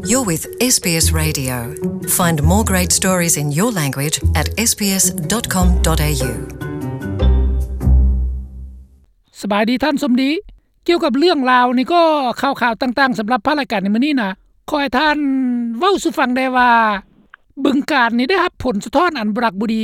You're with S B S Radio. Find more great stories in your language at S B S dot com dot A U. ສະບາຍດີທ່ານສົມດີ. ກ່ຽວກັບເລື່ອງລາວນີ້ກໍ ຂ່າວໆຕ່າງໆສຳລັບພາກລາຍການໃນມື້ນີ້ນະ ຂໍໃຫ້ທ່ານເວົ້າສູ່ຟັງແດ່ວ່າ ບຶງການນີ້ໄດ້ຮັບຜົນສະທ້ອນອັນບໍ່ຮັກບໍ່ດີ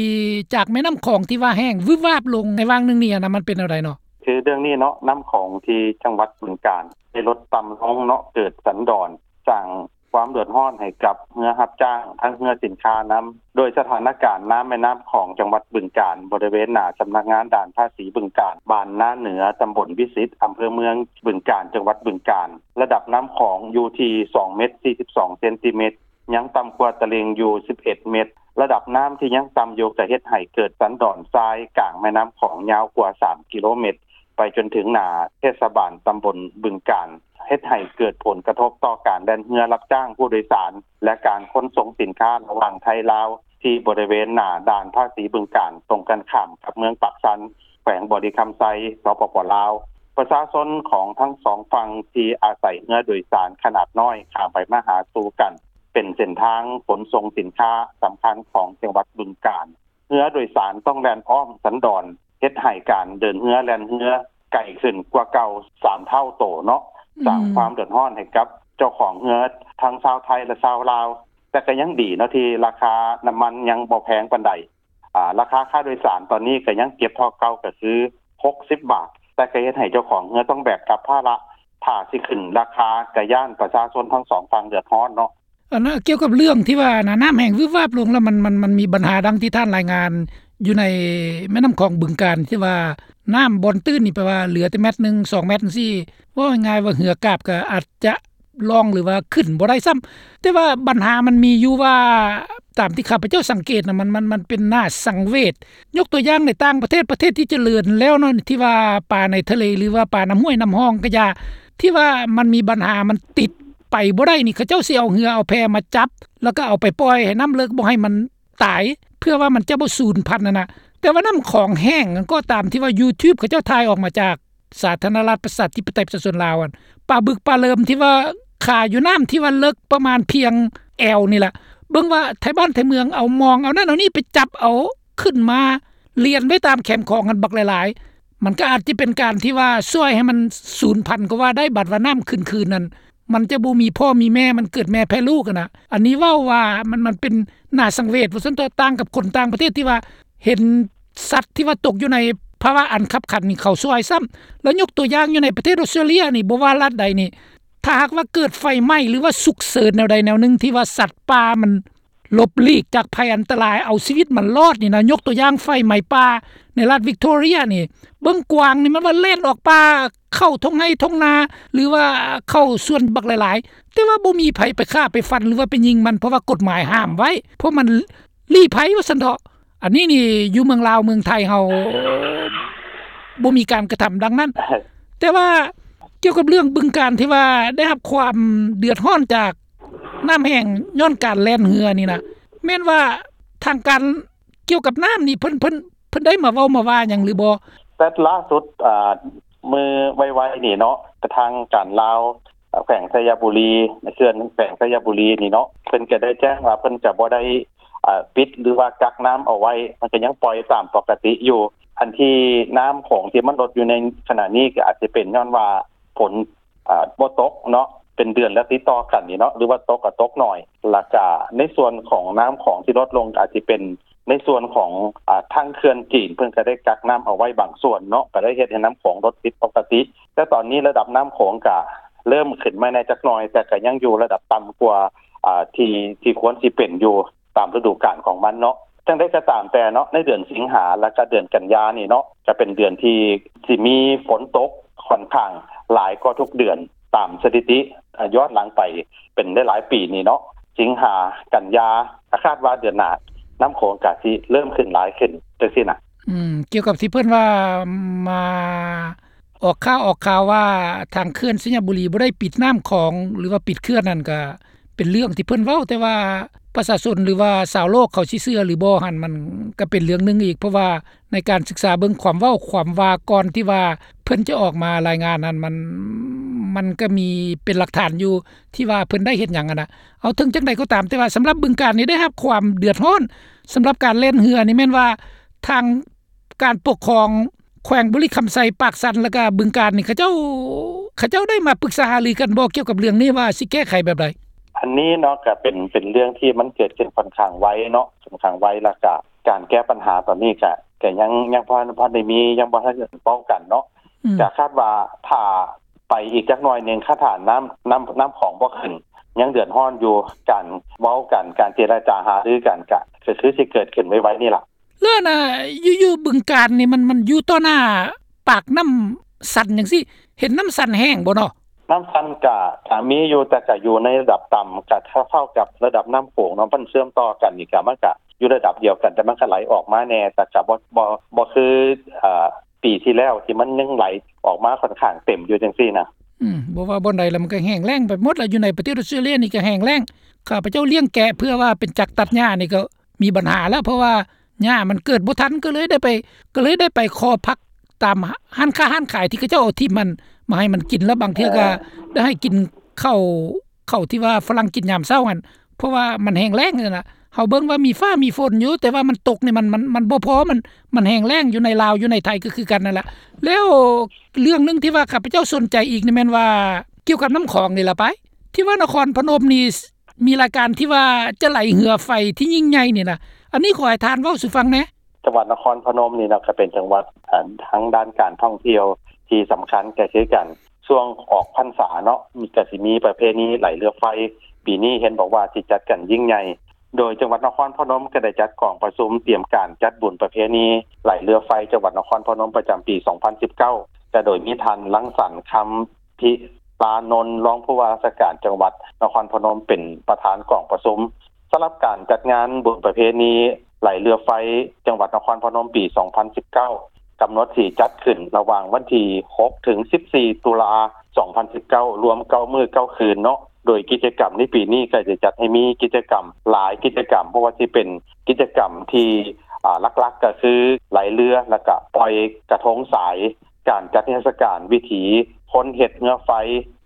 ຈາກແມ່ນ້ຳຂອງທີ່ວ່າແຫ້ງວືບວາບລົງໃນຫວ່າງໜຶ່ງນີ້ນະ ມັນເປັນແນວໃດເນາະ? ຄືເລື່ອງນີ້ເນາະ ນ້ຳຂອງທີ່ຈັງຫວັດບຶງການໄດ້ລົດຕ່ຳລົງເນາະ ເກີດສັນດອນ ສ້າງຄວາມເດືອດຮ້ອນໃຫ້ກັບເຮືອຮັບຈ້າງ ທັງເຮືອສິນຄ້ານຳ ໂດຍສະຖານະການນ້ຳແມ່ນ້ຳຂອງຈັງຫວັດບຶງການ ບໍລິເວນໜ້າສຳນັກງານດ່ານພາສີບຶງການ ບ້ານນາເໜືອ ຕຳບົນວິສິດ ອຳເພີເມືອງບຶງການ ຈັງຫວັດບຶງການ ລະດັບນ້ຳຂອງຢູ່ທີ່ສອງເມັດສີ່ສິບສອງເຊັນຕີເມັດ ຍັງຕ່ຳກວ່າຕະລິ່ງຢູ່ສິບເອັດເມັດ. ລະດັບນ້ຳທີ່ຍັງຕ່ຳຢູ່ ກະເຮັດໃຫ້ເກີດສັນດອນຊາຍກາງແມ່ນ້ຳຂອງຍາວກວ່າສາມກິໂລເມັດ ໄປຈົນເຖິງໜ້າເທດສະບານຕຳບົນບຶງການ ເຮັດໃຫ້ເກີດຜົນກະທົບຕໍ່ການແລ່ນເຮືອຮັບຈ້າງຜູ້ໂດຍສານ ແລະ ການຂົນສົ່ງສິນຄ້າລະຫວ່າງໄທລາວ ທີ່ບໍລິເວນໜ້າດ່ານພາສີບຶງການ ຕົງກັນຂ້າມກັບເມືອງປາກຊັນ ແຂວງບໍລິຄຳໄຊ ສປປ ລາວ. ປະຊາຊົນຂອງທັງສອງຝັ່ງທີ່ອາໄສເຮືອໂດຍສານຂະໜາດນ້ອຍຂ້າມໄປມາຫາສູ່ກັນ ເປັນເສັ້ນທາງຂົນສົ່ງສິນຄ້າສຳຄັນຂອງຈັງຫວັດບຶງການ. ເຮືອໂດຍສານຕ້ອງແລ່ນອ້ອມສັນດອນ ເຮັດໃຫ້ການເດີນເຮືອແລ່ນເຮືອໄກຂຶ້ນກວ່າເກົ່າສາມເທົ່າໂຕເນາະ, ອືມ ສ້າງຄວາມເດືອດຮ້ອນໃຫ້ກັບເຈົ້າຂອງເຮືອທັງຊາວໄທ ແລະ ຊາວລາວ. ແຕ່ກໍຍັງດີເນາະ ທີ່ລາຄານ້ຳມັນຍັງບໍ່ແພງປານໃດ. ອາ ລາຄາຄ່າໂດຍສານຕອນນີ້ກໍຍັງເກັບເທົ່າເກົ່າ ກໍຄືຫົກສິບບາດ, ແຕ່ກໍເຮັດໃຫ້ເຈົ້າຂອງເຮືອຕ້ອງແບກຮັບພາລະ. ຖ້າຊິຂຶ້ນລາຄາ ກໍຢ້ານປະຊາຊົນທັງສອງຝັ່ງເດືອດຮ້ອນເນາະ. ອັນນະ ກ່ຽວກັບເລື່ອງທີ່ວ່ານະ ນ້ຳແຫ້ງວືບວາບລົງ ແລ້ວມັນ ມັນ ມັນມີບັນຫາດັ່ງທີ່ທ່ານລາຍງານຢູ່ໃນແມ່ນ້ຳຂອງບຶງການ ທີ່ວ່ານ້ຳບ່ອນຕື້ນນີ້ ແປວ່າເຫຼືອແຕ່ແມັດໜຶ່ງ ສອງແມັດຈັ່ງຊີ້ ເວົ້າງ່າຍໆວ່າເຮືອກາບກໍອາດຈະລ່ອງ ຫຼືວ່າຂຶ້ນບໍ່ໄດ້ຊ້ຳ. ແຕ່ວ່າບັນຫາມັນມີຢູ່ວ່າ ຕາມທີ່ຂ້າພະເຈົ້າສັງເກດນະ ມັນ ມັນ ມັນເປັນໜ້າສັງເວດ. ຍົກຕົວຢ່າງໃນຕ່າງປະເທດ ປະເທດທີ່ຈະເລີນແລ້ວເນາະ ທີ່ວ່າປາໃນທະເລ ຫຼືວ່າປານ້ຳຫ້ວຍນ້ຳຮ່ອງກໍຢ່າ ທີ່ວ່າມັນມີບັນຫາ ມັນຕິດ ໄປບໍ່ໄດ້ນີ້ ເຂົາເຈົ້າຊິເອົາເຮືອເອົາແພມາຈັບ ແລ້ວກໍເອົາໄປປ່ອຍໃຫ້ນ້ຳເລິກ ບໍ່ໃຫ້ມັນຕາຍ ເພື່ອວ່າມັນຈະບໍ່ສູນພັນຫັ້ນນະ. ແຕ່ວ່ານ້ຳຂອງແຫ້ງນັ້ນກໍຕາມ ທີ່ວ່າ YouTube ເຂົາເຈົ້າຖ່າຍອອກມາຈາກສາທາລະນະລັດປະຊາທິປະໄຕປະຊາຊົນລາວຫັ້ນ ປາບຶກປາເລີມທີ່ວ່າຄາຢູ່ນ້ຳທີ່ວ່າເລິກປະມານພຽງແອວນີ້ລະ ເບິ່ງວ່າໄທບ້ານໄທເມືອງເອົາມອງ ເອົານັ້ນເອົານີ້ໄປຈັບເອົາຂຶ້ນມາລຽນໄວ້ຕາມແຄມຂອງຫັ້ນບັກຫຼາຍໆ. ມັນກໍອາດຈະເປັນການທີ່ວ່າຊ່ວຍໃຫ້ມັນສູນພັນກໍວ່າໄດ້. ບັດວ່ານ້ຳຂຶ້ນຄືນນັ້ນ ມັນຈະບໍ່ມີພໍ່ມີແມ່ ມັນເກີດແມ່ແຜ່ລູກຫັ້ນນະ. ອັນນີ້ເວົ້າວ່າມັນ ມັນເປັນໜ້າສັງເວດວ່າຊັ້ນເຖາະ ຕ່າງກັບຄົນຕ່າງປະເທດທີ່ວ່າເຫັນສັດທີ່ວ່າຕົກຢູ່ໃນພາວະອັນຄັບຂັນນີ້ ເຂົາຊ່ວຍຊ້ຳ. ແລ້ວຍົກຕົວຢ່າງຢູ່ໃນປະເທດອອສເຕຣເລຍນີ້ ບໍ່ວ່າລັດໃດນີ້ ຖ້າຫາກວ່າເກີດໄຟໄໝ້ ຫຼືວ່າສຸກເສີນແນວໃດແນວໜຶ່ງ ທີ່ວ່າສັດປ່າມັນ ຫຼົບຫຼີກຈາກໄພອັນຕະລາຍ ເອົາຊີວິດມັນລອດນີ້ນະ. ຍົກຕົວຢ່າງໄຟໄໝ້ປ່າໃນລັດວິກໂທເຣຍນີ້ ເບິ່ງກວາງນີ້ ມັນວ່າແລ່ນອອກປ່າເຂົ້າທົ່ງໄຮ່ທົ່ງນາ ຫຼືວ່າເຂົ້າສວນບັກຫຼາຍໆ ແຕ່ວ່າບໍ່ມີໃຜໄປຂ້າໄປຟັນ ຫຼືວ່າໄປຍິງມັນ ເພາະວ່າກົດໝາຍຫ້າມໄວ້ ເພາະມັນລີ້ໄພວ່າຊັ້ນເຖາະ. ອັນນີ້ນີ້ຢູ່ເມືອງລາວເມືອງໄທເຮົາບໍ່ມີການກະທຳດັ່ງນັ້ນ. ແຕ່ວ່າກ່ຽວກັບເລື່ອງບຶງການທີ່ວ່າໄດ້ຮັບຄວາມເດືອດຮ້ອນຈາກ ນ້ຳແຫ້ງຍ້ອນການແລ່ນເຮືອນີ້ນະ ແມ່ນວ່າທາງການກ່ຽວກັບນ້ຳນີ້ ເພິ່ນ ເພິ່ນ ເພິ່ນໄດ້ມາເວົ້າມາວ່າຫຍັງຫຼືບໍ່? ແຕ່ລ່າສຸດ ອາ ມື້ໄວໆນີ້ເນາະ ກະທາງການລາວ ອາ ແຂວງໄຊຍະບູລີ ເຂື່ອນແຂວງໄຊຍະບູລີນີ້ເນາະ ເພິ່ນກະໄດ້ແຈ້ງວ່າເພິ່ນຈະບໍ່ໄດ້ ອາ ປິດ ຫຼືວ່າກັກນ້ຳເອົາໄວ້ ມັນກະຍັງປ່ອຍຕາມປົກກະຕິຢູ່. ອັນທີ່ນ້ຳຂອງທີ່ມັນລົດຢູ່ໃນຂະນະນີ້ ກະອາດຈະເປັນຍ້ອນວ່າຝົນ ອາ ບໍ່ຕົກເນາະ ເປັນເດືອນແລ້ວຕິດຕໍ່ກັນນີ້ເນາະ ຫຼືວ່າຕົກກໍຕົກໜ້ອຍ. ແລ້ວກະໃນສ່ວນຂອງນ້ຳຂອງທີ່ລົດລົງ ອາດຈະເປັນໃນສ່ວນຂອງ ອາ ທາງເຂື່ອນຈີນ ເພິ່ນກະໄດ້ກັກນ້ຳເອົາໄວ້ບາງສ່ວນເນາະ ກະໄດ້ເຮັດໃຫ້ນ້ຳຂອງລົດຜິດປົກກະຕິ. ແຕ່ຕອນນີ້ລະດັບນ້ຳຂອງກະເລີ່ມຂຶ້ນມາແດ່ຈັກໜ້ອຍ ແຕ່ກະຍັງຢູ່ລະດັບຕ່ຳກວ່າ ອາ ທີ່ ທີ່ຄວນຊິເປັນຢູ່ ຕາມລະດູການຂອງມັນເນາະ. ຈັ່ງໃດກໍຕາມແຕ່ເນາະ ໃນເດືອນສິງຫາ ແລະກະເດືອນກັນຍານີ້ເນາະ ຈະເປັນເດືອນທີ່ຊິມີຝົນຕົກຂ້ອນຂ້າງຫຼາຍກວ່າທຸກເດືອນຕາມສະຖິຕິ ອາ ຍ້ອນຫຼັງໄປເປັນຫຼາຍໆປີນີ້ເນາະ. ສິງຫາ ກັນຍາ ກໍຄາດວ່າເດືອນໜ້ານ້ຳຂອງກໍຊິເລີ່ມຂຶ້ນຫຼາຍຂຶ້ນຈັ່ງຊີ້ນະ. ອືມ ກ່ຽວກັບທີ່ເພິ່ນວ່າມາ ອອກຂ່າວ ອອກຂ່າວວ່າທາງເຂື່ອນໄຊຍະບູລີບໍ່ໄດ້ປິດນ້ຳຂອງ ຫຼືວ່າປິດເຂື່ອນນັ້ນ ກະເປັນເລື່ອງທີ່ເພິ່ນເວົ້າ ແຕ່ວ່າປະຊາຊົນ ຫຼືວ່າຊາວໂລກເຂົາຊິເຊື່ອຫຼືບໍ່ຫັ້ນ ມັນກະເປັນເລື່ອງໜຶ່ງອີກ ເພາະວ່າໃນການສຶກສາເບິ່ງຄວາມເວົ້າຄວາມວ່າ ກ່ອນທີ່ວ່າເພິ່ນຈະອອກມາລາຍງານນັ້ນ ມັນ ມັນກໍມີເປັນຫຼັກຖານຢູ່ ທີ່ວ່າເພິ່ນໄດ້ເຮັດຫຍັງຫັ້ນນະ. ເອົາ ເຖິງຈັ່ງໃດກໍຕາມ ແຕ່ວ່າສຳລັບບຶງການນີ້ໄດ້ຮັບຄວາມເດືອດຮ້ອນ ສຳລັບການແລ່ນເຮືອນີ້ ແມ່ນວ່າທາງການປົກຄອງແຂວງບໍລິຄຳໄຊ, ປາກຊັນ ແລ້ວກໍບຶງການນີ້ ເຂົາເຈົ້າ ເຂົາເຈົ້າໄດ້ມາປຶກສາຫາລືກັນບໍ່ ກ່ຽວກັບເລື່ອງນີ້ວ່າຊິແກ້ໄຂແບບໃດ? ອັນນີ້ເນາະ ກໍເປັນ ເປັນເລື່ອງທີ່ມັນເກີດຂຶ້ນຂ້ອນຂ້າງໄວເນາະ ຂ້ອນຂ້າງໄວ ແລ້ວກໍການແກ້ບັນຫາຕອນນີ້ກໍ ກໍຍັງ ຍັງບໍ່ ບໍ່ໄດ້ມີ ຍັງບໍ່ທັນເວົ້າກັນເນາະ. ອືມ ກໍຄາດວ່າຖ້າໄປອີກຈັກໜ້ອຍໜຶ່ງ ຄັນຖ້ານ້ຳ ນ້ຳ ນ້ຳຂອງບໍ່ຂຶ້ນ ຍັງເດືອດຮ້ອນຢູ່ ການເວົ້າກັນ ການເຈລະຈາຫາລືກັນ ກໍ ກໍຄືຊິເກີດຂຶ້ນໄວໆນີ້ລະ. ແລ້ວນະ ຢູ່ ຢູ່ບຶງການນີ້ ມັນ ມັນຢູ່ຕໍ່ໜ້າປາກນ້ຳຊັນຈັ່ງຊີ້ ເຫັນນ້ຳຊັນແຫ້ງບໍ່ເນາະ? ນ້ຳຊັນກະ ກະມີຢູ່ ແຕ່ກະຢູ່ໃນລະດັບຕ່ຳ ກະເທົ່າ ເທົ່າກັບລະດັບນ້ຳໂຂງເນາະ ມັນເຊື່ອມຕໍ່ກັນນີ້ກະ ມັນກະຢູ່ລະດັບດຽວກັນ ແຕ່ມັນກະໄຫຼອອກມາແດ່ ແຕ່ກະບໍ່ ບໍ່ ບໍ່ຄື ເອີ ປີທີ່ແລ້ວທີ່ມັນຍັງໄຫຼອອກມາຂ້ອນຂ້າງເຕັມຢູ່ຈັ່ງຊີ້ນະ. ອືມ ບໍ່ວ່າບ່ອນໃດລະ ມັນກໍແຫ້ງແລ້ງໄປໝົດລະ. ຢູ່ໃນປະເທດອອສເຕຣເລຍນີ້ກໍແຫ້ງແລ້ງ. ຂ້າພະເຈົ້າລ້ຽງແກະເພື່ອວ່າເປັນຈັກຕັດຫຍ້ານີ້ກໍມີບັນຫາລະ ເພາະວ່າຫຍ້າມັນເກີດບໍ່ທັນ ກໍເລີຍໄດ້ໄປ ກໍເລີຍໄດ້ໄປຂໍຜັກຕາມຮ້ານຄ້າຮ້ານຂາຍທີ່ເຂົາເຈົ້າເອົາຖິ້ມຫັ້ນມາໃຫ້ມັນກິນ ລະບາງເທື່ອກໍ ເອີ ໄດ້ໃຫ້ກິນເຂົ້າ ເຂົ້າທີ່ວ່າຝຣັ່ງກິນຍາມເຊົ້າຫັ້ນ ເພາະວ່າມັນແຫ້ງແລ້ງຫັ້ນນະ. ເຮົາເບິ່ງວ່າມີຟ້າມີຝົນຢູ່ ແຕ່ວ່າມັນຕົກນີ້ມັນ ມັນ ມັນບໍ່ພໍ ມັນ ມັນແຫ້ງແລ້ງ. ຢູ່ໃນລາວ ຢູ່ໃນໄທກໍຄືກັນນັ້ນລະ. ແລ້ວເລື່ອງໜຶ່ງທີ່ວ່າຂ້າພະເຈົ້າສົນໃຈອີກນີ້ແມ່ນວ່າ ກ່ຽວກັບນ້ຳຂອງນີ້ລະໄປ ທີ່ວ່ານະຄອນພະນົມນີ້ ມີລາຍການທີ່ວ່າຈະໄຫຼເຮືອໄຟທີ່ຍິ່ງໃຫຍ່ນີ້ນະ ອັນນີ້ຂໍໃຫ້ທ່ານເວົ້າສູ່ຟັງແດ່. ຈັງຫວັດນະຄອນພະນົມນີ້ເນາະ ກໍເປັນຈັງຫວັດ ອາ ທາງດ້ານການທ່ອງທ່ຽວທີ່ສຳຄັນກໍຄືກັນ. ຊ່ວງອອກພັນສາເນາະ ມີ ກໍຊິມີປະເພນີໄຫຼເຮືອໄຟ ປີນີ້ເຫັນບອກວ່າຊິຈັດກັນຍິ່ງໃຫຍ່ ໂດຍຈັງຫວັດນະຄອນພະນົມກໍໄດ້ຈັດກອງປະຊຸມຕຽມການຈັດບຸນປະເພນີໄຫຼເຮືອໄຟຈັງຫວັດນະຄອນພະນົມປະຈຳປີສອງພັນສິບເກົ້າ ກໍໂດຍມີທ່ານ ລັງສັນ ຄຳ ພິລານົນ ຮອງຜູ້ວ່າລາຊະການຈັງຫວັດນະຄອນພະນົມເປັນປະທານກອງປະຊຸມ. ສຳລັບການຈັດງານບຸນປະເພນີໄຫຼເຮືອໄຟຈັງຫວັດນະຄອນພະນົມປີສອງພັນສິບເກົ້າ ກຳນົດຊິຈັດຂຶ້ນລະຫວ່າງວັນທີຫົກເຖິງສິບສີ່ຕຸລາສອງພັນສິບເກົ້າ ລວມເກົ້າມື້ເກົ້າຄືນເນາະ. ໂດຍກິດຈະກຳໃນປີນີ້ກໍຈະຈັດໃຫ້ມີກິດຈະກຳຫຼາຍກິດຈະກຳ ບໍ່ວ່າຊິເປັນກິດຈະກຳທີ່ ອາ ຫຼັກໆກໍຄືໄຫຼເຮືອ ແລ້ວກະປ່ອຍກະທົງສາຍ ການຈັດນິທັດສະການວິຖີຄົນເຮັດເຮືອໄຟ,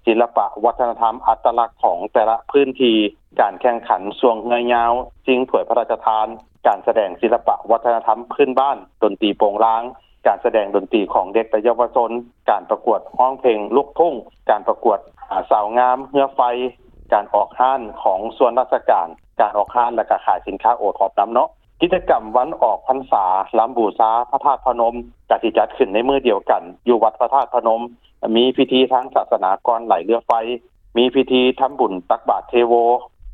ສິລະປະວັດທະນະທຳອັດຕະລັກຂອງແຕ່ລະພື້ນທີ່, ການແຂ່ງຂັນຊ່ວງເຮືອຍາວ, ຊິງຖ້ວຍພະລາຊະທານ, ການສະແດງສິລະປະວັດທະນະທຳພື້ນບ້ານ, ດົນຕີໂປງລາງ, ການສະແດງດົນຕີຂອງເດັກ ແລະ ເຍົາວະຊົນ, ການປະກວດຮ້ອງເພງລູກທຸ່ງ, ການປະກວດ ອາ ສາວງາມເຮືອໄຟ, ການອອກຮ້ານຂອງສ່ວນລາຊະການ, ການອອກຮ້ານ ແລະ ກະຂາຍສິນຄ້າໂອທອບນຳເນາະ. ກິດຈະກຳວັນອອກພັນສາ ລຳບູຊາພະທາດພະນົມ ກະຊິຈັດຂຶ້ນໃນມື້ດຽວກັນຢູ່ວັດພະທາດພະນົມ, ມີພິທີທາງສາສະໜາກ່ອນໄຫຼເຮືອໄຟ, ມີພິທີທຳບຸນຕັກບາດເທໂວ,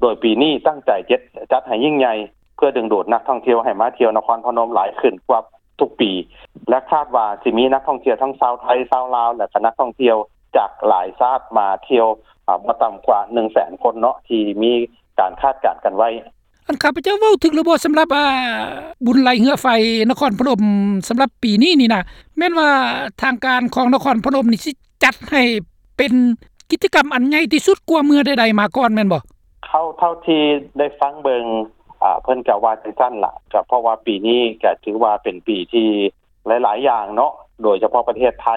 ໂດຍປີນີ້ຕັ້ງໃຈຈັດ ຈັດໃຫ້ຍິ່ງໃຫຍ່ ເພື່ອດຶງດູດນັກທ່ອງທ່ຽວໃຫ້ມາທ່ຽວນະຄອນພະນົມຫຼາຍຂຶ້ນກວ່າທຸກປີ ແລະ ຄາດວ່າຊິມີນັກທ່ອງທ່ຽວທັງຊາວໄທ, ຊາວລາວ ແລະ ກະນັກທ່ອງທ່ຽວຈາກຫຼາຍຊາດມາທ່ຽວ ອາ ບໍ່ຕ່ຳກວ່າໜຶ່ງແສນຄົນເນາະ ທີ່ມີການຄາດການກັນໄວ້. ອັນຂ້າພະເຈົ້າເວົ້າຖືກຫຼືບໍ່ ສຳລັບ ອາ ບຸນໄຫຼເຮືອໄຟນະຄອນພະນົມ ສຳລັບປີນີ້ນີ້ນະ ແມ່ນວ່າທາງການຂອງນະຄອນພະນົມນີ້ຊິຈັດໃຫ້ເປັນກິດຈະກຳອັນໃຫຍ່ທີ່ສຸດກວ່າເມື່ອໃດໆມາກ່ອນແມ່ນບໍ່? ເທົ່າ ເທົ່າທີ່ໄດ້ຟັງເບິ່ງ ອາ ເພິ່ນກະວ່າຈັ່ງຊັ້ນລະ ກະເພາະວ່າປີນີ້ກະຖືວ່າເປັນປີທີ່ ຫຼາຍໆຢ່າງເນາະ ໂດຍສະເພາະປະເທດໄທ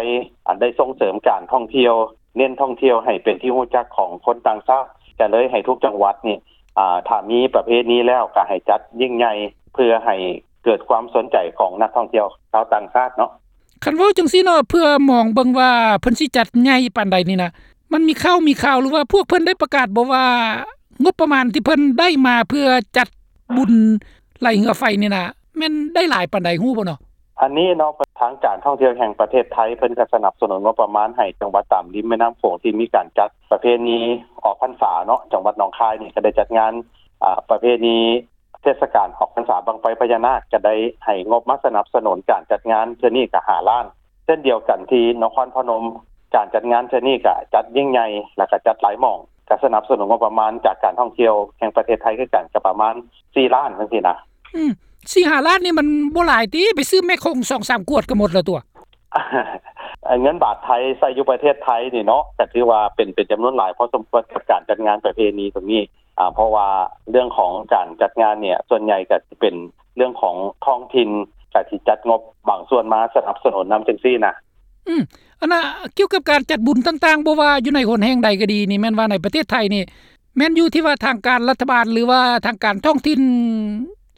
ອັນໄດ້ສົ່ງເສີມການທ່ອງທ່ຽວ ເນັ້ນທ່ອງທ່ຽວໃຫ້ເປັນທີ່ຮູ້ຈັກຂອງຄົນຕ່າງຊາດ ກະເລີຍໃຫ້ທຸກຈັງຫວັດນີ້ ອາ ຖ້າມີປະເພນີແລ້ວ ກະໃຫ້ຈັດຍິ່ງໃຫຍ່ ເພື່ອໃຫ້ເກີດຄວາມສົນໃຈຂອງນັກທ່ອງທ່ຽວຊາວຕ່າງຊາດເນາະ. ຄັນເວົ້າຈັ່ງຊີ້ເນາະ ເພື່ອມອງເບິ່ງວ່າເພິ່ນຊິຈັດໃຫຍ່ປານໃດນີ້ນະ ມັນມີຂ່າວ ມີຂ່າວ ຫຼືວ່າພວກເພິ່ນໄດ້ປະກາດບໍ່ວ່າ ງົບປະມານທີ່ເພິ່ນໄດ້ມາເພື່ອຈັດບຸນໄຫຼເຮືອໄຟນີ້ນະ ແມ່ນໄດ້ຫຼາຍປານໃດ ຮູ້ບໍ່ເນາະ? ອັນນີ້ເນາະ ທາງການທ່ອງທ່ຽວແຫ່ງປະເທດໄທ ເພິ່ນກະສະໜັບສະໜູນງົບປະມານໃຫ້ຈັງຫວັດຕາມລິມແມ່ນ້ຳໂຂງທີ່ມີການຈັດປະເພນີອອກພັນສາເນາະ. ຈັງຫວັດໜອງຄາຍນີ້ກະໄດ້ຈັດງານ ອາ ປະເພນີເທດສະການອອກພັນສາບັ້ງໄຟພະຍານາກ ກະໄດ້ໃຫ້ງົບມາສະໜັບສະໜູນການຈັດງານເທື່ອນີ້ກະຫ້າລ້ານ. ເຊັ່ນດຽວກັນທີ່ນະຄອນພະນົມ ການຈັດງານເທື່ອນີ້ກະຈັດຍິ່ງໃຫຍ່ ແລ້ວກະຈັດຫຼາຍໝ່ອງ ກະສະໜັບສະໜູນງົບປະມານຈາກການທ່ອງທ່ຽວແຫ່ງປະເທດໄທຄືກັນ ກະປະມານສີ່ລ້ານຈັ່ງຊີ້ນະ. ອືມ ສີ່ຫ້າລ້ານນີ້ມັນບໍ່ຫຼາຍຕິ ໄປຊື້ແມໂຄງສອງສາມຂວດກະໝົດແລ້ວຕົວະ. ເງິນບາດໄທໃຊ້ຢູ່ປະເທດໄທນີ້ເນາະ ກະຖືວ່າເປັນ ເປັນຈຳນວນຫຼາຍພໍສົມຄວນກັບການຈັດງານປະເພນີຕົງນີ້ ອາ ເພາະວ່າເລື່ອງຂອງການຈັດງານນີ້ ສ່ວນໃຫຍ່ກະຊິເປັນເລື່ອງຂອງທ້ອງຖິ່ນ ກະຊິຈັດງົບບາງສ່ວນມາສະໜັບສະໜູນນຳຈັ່ງຊີ້ນະ. ອືມ ອັນນ່າ ກ່ຽວກັບການຈັດບຸນຕ່າງໆ ບໍ່ວ່າຢູ່ໃນຫົນແຫ່ງໃດກໍດີນີ້ ແມ່ນວ່າໃນປະເທດໄທນີ້ ແມ່ນຢູ່ທີ່ວ່າທາງການລັດຖະບານ ຫຼືວ່າທາງການທ້ອງຖິ່ນ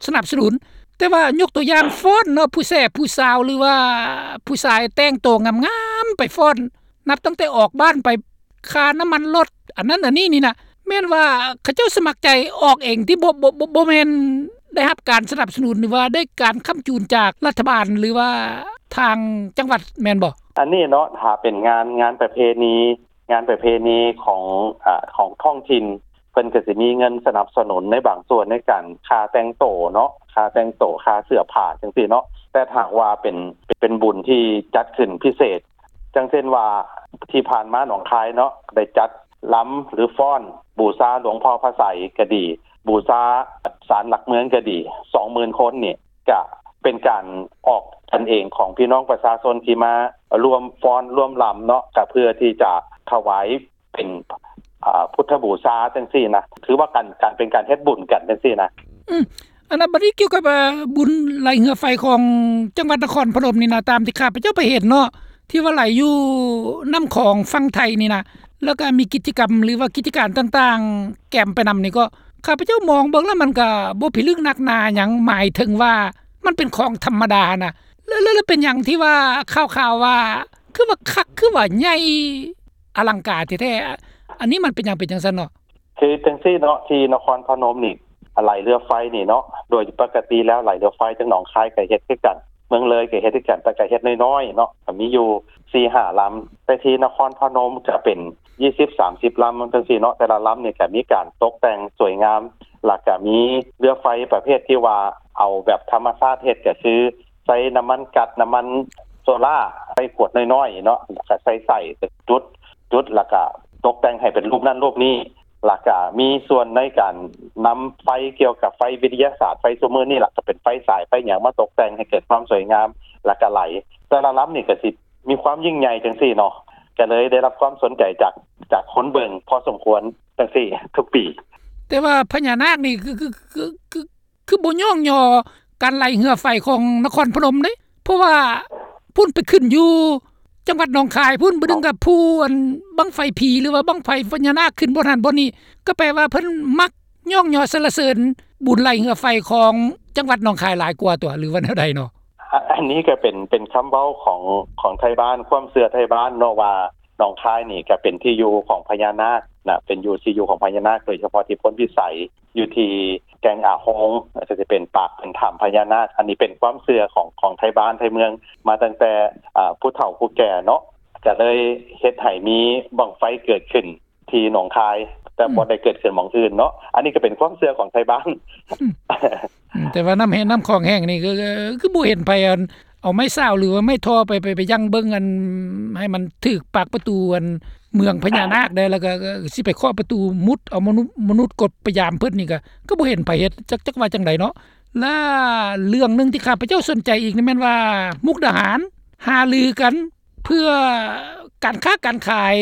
ສະໜັບສະໜູນ, ແຕ່ວ່າຍົກຕົວຢ່າງຟ້ອນເນາະ ຜູ້ແສຜູ້ສາວ ຫຼືວ່າຜູ້ຊາຍແຕ່ງໂຕງາມໆໄປຟ້ອນ ນັບຕັ້ງແຕ່ອອກບ້ານໄປ ຄ່ານ້ຳມັນລົດ ອັນນັ້ນອັນນີ້ນີ້ນະ ແມ່ນວ່າເຂົາເຈົ້າສະໝັກໃຈອອກເອງຕິ ບໍ່ ບໍ່ ບໍ່ ບໍ່ແມ່ນໄດ້ຮັບການສະໜັບສະໜູນ ຫຼືວ່າໄດ້ການຄ້ຳຈູນຈາກລັດຖະບານ ຫຼືວ່າທາງຈັງຫວັດແມ່ນບໍ່? ອັນນີ້ເນາະ ຖ້າເປັນງານ ງານປະເພນີ ງານປະເພນີຂອງ ອາ ຂອງທ້ອງຖິ່ນ ເພິ່ນກໍຊິມີເງິນສະໜັບສະໜູນໃນບາງສ່ວນໃນການຄ່າແຕ່ງໂຕເນາະ ຄ່າແຕ່ງໂຕ ຄ່າເສື້ອຜ້າຈັ່ງຊີ້ເນາະ. ແຕ່ຖ້າຫາກວ່າເປັນ ເປັນບຸນທີ່ຈັດຂຶ້ນພິເສດ ຈັ່ງເຊັ່ນວ່າ ທີ່ຜ່ານມາໜອງຄາຍເນາະ ໄດ້ຈັດລຳ ຫຼື ຟ້ອນບູຊາຫຼວງພໍ່ພະໄຊກໍດີ ບູຊາສານຫຼັກເມືອງກໍດີ ສອງໝື່ນຄົນນີ້ ກະເປັນການອອກກັນເອງຂອງພີ່ນ້ອງປະຊາຊົນທີ່ມາຮ່ວມຟ້ອນຮ່ວມລຳເນາະ ກະເພື່ອທີ່ຈະຖວາຍເປັນ ອາ ພຸດທະບູຊາຈັ່ງຊີ້ນະ ຖືວ່າການ ການເປັນການເຮັດບຸນກັນຈັ່ງຊີ້ນະ. ອືມ ອັນນັ້ນ ບັດນີ້ກ່ຽວກັບ ອາ ບຸນໄຫຼເຮືອໄຟຂອງຈັງຫວັດນະຄອນພະນົມນີ້ນະ ຕາມທີ່ຂ້າພະເຈົ້າໄປເຫັນເນາະ ທີ່ວ່າໄຫຼຢູ່ນ້ຳຂອງຝັ່ງໄທນີ້ນະ ແລ້ວກໍມີກິດຈະກຳ ຫຼືວ່າກິດຈະການຕ່າງໆ ແກມໄປນຳນີ້ ກໍຂ້າພະເຈົ້າມອງເບິ່ງແລ້ວມັນກໍບໍ່ພິລຶກໜັກໜາຫຍັງ ໝາຍເຖິງວ່າມັນເປັນຂອງທຳມະດານະ ແລ້ວ ແລ້ວ ແລ້ວເປັນຫຍັງທີ່ວ່າຂ່າວໆວ່າ ຄືວ່າຄັກ ຄືວ່າໃຫຍ່ ອະລັງການແທ້ໆ ອັນນີ້ມັນເປັນຫຍັງເປັນຈັ່ງຊັ້ນເນາະ? ຄືຈັ່ງຊີ້ເນາະ ທີ່ນະຄອນພະນົມນີ້ ໄຫຼເຮືອໄຟນີ້ເນາະ ໂດຍປົກກະຕິແລ້ວໄຫຼເຮືອໄຟທາງໜອງຄາຍກໍເຮັດຄືກັນ ເມືອງເລີຍກໍເຮັດຄືກັນ ແຕ່ກໍເຮັດນ້ອຍໆເນາະ ກໍມີຢູ່ສີ່ຫ້າລຳ ແຕ່ທີ່ນະຄອນພະນົມຈະເປັນຊາວ ສາມສິບລຳຈັ່ງຊີ້ເນາະ ແຕ່ລະລຳນີ້ກໍມີການຕົກແຕ່ງສວຍງາມ ແລ້ວກໍມີເຮືອໄຟປະເພດທີ່ວ່າເອົາແບບທຳມະຊາດເຮັດ ກໍຄືໃຊ້ນ້ຳມັນກັດ ນ້ຳມັນໂຊລາ ໃສ່ຂວດນ້ອຍໆເນາະ ແລ້ວກໍໃສ່ ໃສ່ ຈຸດ ຈຸດ ແລ້ວກໍຕົກແຕ່ງໃຫ້ເປັນຮູບນັ້ນຮູບນີ້ ແລ້ວກະມີສ່ວນໃນການນຳໄຟກ່ຽວກັບໄຟວິທະຍາສາດ ໄຟຊຸມມື້ນີ້ລະ ກະເປັນໄຟສາຍໄຟຫຍັງມາຕົກແຕ່ງໃຫ້ເກີດຄວາມສວຍງາມ ແລ້ວກະໄຫຼ ແຕ່ລະລຳນີ້ກະຊິມີຄວາມຍິ່ງໃຫຍ່ຈັ່ງຊີ້ເນາະ ກະເລີຍໄດ້ຮັບຄວາມສົນໃຈຈາກ ຈາກຄົນເບິ່ງພໍສົມຄວນຈັ່ງຊີ້ທຸກປີ. ແຕ່ວ່າພະຍານາກນີ້ຄື ຄື ຄື ຄື ຄືບໍ່ຍ້ອງຍໍການໄຫຼເຮືອໄຟຂອງນະຄອນພະນົມເດ້ ເພາະວ່າພຸ້ນໄປຂຶ້ນຢູ່ຈັງຫວັດໜອງຄາຍພຸ້ນ ບາດໜຶ່ງກໍພູອັນບັ້ງໄຟຜີ ຫຼືວ່າບັ້ງໄຟພະຍານາກຂຶ້ນບ່ອນຫັ້ນບ່ອນນີ້ ກໍແປວ່າເພິ່ນມັກຍ້ອງຍໍສັນລະເສີນບຸນໄຫຼເຮືອໄຟຂອງຈັງຫວັດໜອງຄາຍຫຼາຍກວ່າຕົວະ ຫຼືວ່າແນວໃດເນາະ? ອາ ອັນນີ້ກໍເປັນ ເປັນຄຳເວົ້າຂອງ ຂອງໄທບ້ານ ຄວາມເຊື່ອໄທບ້ານເນາະວ່າ ໜອງຄາຍນີ້ກໍເປັນທີ່ຢູ່ຂອງພະຍານາກນະ ເປັນຢູ່ ທີ່ຢູ່ຂອງພະຍານາກ ໂດຍສະເພາະທີ່ໂພນພິໄສ ຢູ່ທີ່ແກ່ງອາໂຮງ ກໍຈະເປັນປາກເປັນຖ້ຳພະຍານາກ ອັນນີ້ເປັນຄວາມເຊື່ອຂອງ ຂອງໄທບ້ານໄທເມືອງ ມາຕັ້ງແຕ່ ອາ ຜູ້ເຖົ້າຜູ້ແກ່ເນາະ ກໍເລີຍເຮັດໃຫ້ມີບັ້ງໄຟເກີດຂຶ້ນທີ່ໜອງຄາຍ ແຕ່ ອືມ ບໍ່ໄດ້ເກີດຂຶ້ນໝ່ອງອື່ນເນາະ ອັນນີ້ກໍເປັນຄວາມເຊື່ອຂອງໄທບ້ານ. ອືມ ອືມ ແຕ່ວ່ານ້ຳແຫ້ງ ນ້ຳຂອງແຫ້ງນີ້ ຄື ຄື ຄືບໍ່ເຫັນໃຜ ອັນ ເອົາໄມ້ຊາວ ຫຼືວ່າໄມ້ທໍ່ໄປ ໄປ ໄປຢັ້ງເບິ່ງ ອັນ ໃຫ້ມັນຖືກປາກປະຕູ ອັນ ເມືອງພະຍານາກໄດ້ ແລ້ວກໍ ກໍ ກໍຊິໄປເຄາະປະຕູມຸດເອົາມະນຸດ ມະນຸດກົດໄປຢາມເພິ່ນນີ້ ກໍ ກໍບໍ່ເຫັນໃຜເຮັດ ຈັກ ຈັກວ່າຈັ່ງໃດເນາະ. ແລະ ເລື່ອງໜຶ່ງທີ່ຂ້າພະເຈົ້າສົນໃຈອີກນີ້ແມ່ນວ່າ ມຸກດາຫານຫາລືກັນເພື່ອການຄ້າການຂາຍ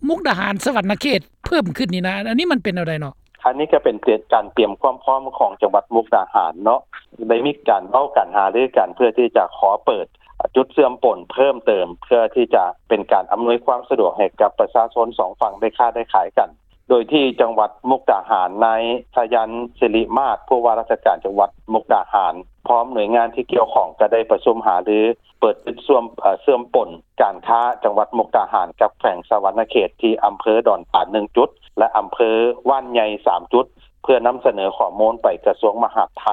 ມຸກດາຫານ ສະຫວັນນະເຂດເພີ່ມຂຶ້ນນີ້ນະ ອັນນີ້ມັນເປັນແນວໃດເນາະ? ອັນນີ້ກໍເປັນການຕຽມຄວາມພ້ອມຂອງຈັງຫວັດມຸກດາຫານເນາະ ໄດ້ມີການເວົ້າກັນຫາລືກັນ ເພື່ອທີ່ຈະຂໍເປີດຈຸດເຊື່ອມປົນເພີ່ມເຕີມ ເພື່ອທີ່ຈະເປັນການອຳນວຍຄວາມສະດວກໃຫ້ກັບປະຊາຊົນສອງຝັ່ງໄດ້ຄ້າໄດ້ຂາຍກັນ ໂດຍທີ່ຈັງຫວັດມຸກດາຫານ ນາຍ ສາຍັນ ສິລິມາດ ຜູ້ວ່າລາຊະການຈັງຫວັດມຸກດາຫານ ພ້ອມໜ່ວຍງານທີ່ກ່ຽວຂ້ອງ ກໍໄດ້ປະຊຸມຫາລື ເປີດຈຸດເຊື່ອມ ເອີ ເຊື່ອມປົນການຄ້າຈັງຫວັດມຸກດາຫານກັບແຂວງສະຫວັນນະເຂດ ທີ່ອຳເພີດອນຕານໜຶ່ງຈຸດ ແລະ ອຳເພີຫວ່ານໃຫຍ່ສາມຈຸດ ເພື່ອນຳສະເໜີຂໍ້ມູນໄປກະຊວງມະຫາດໄທ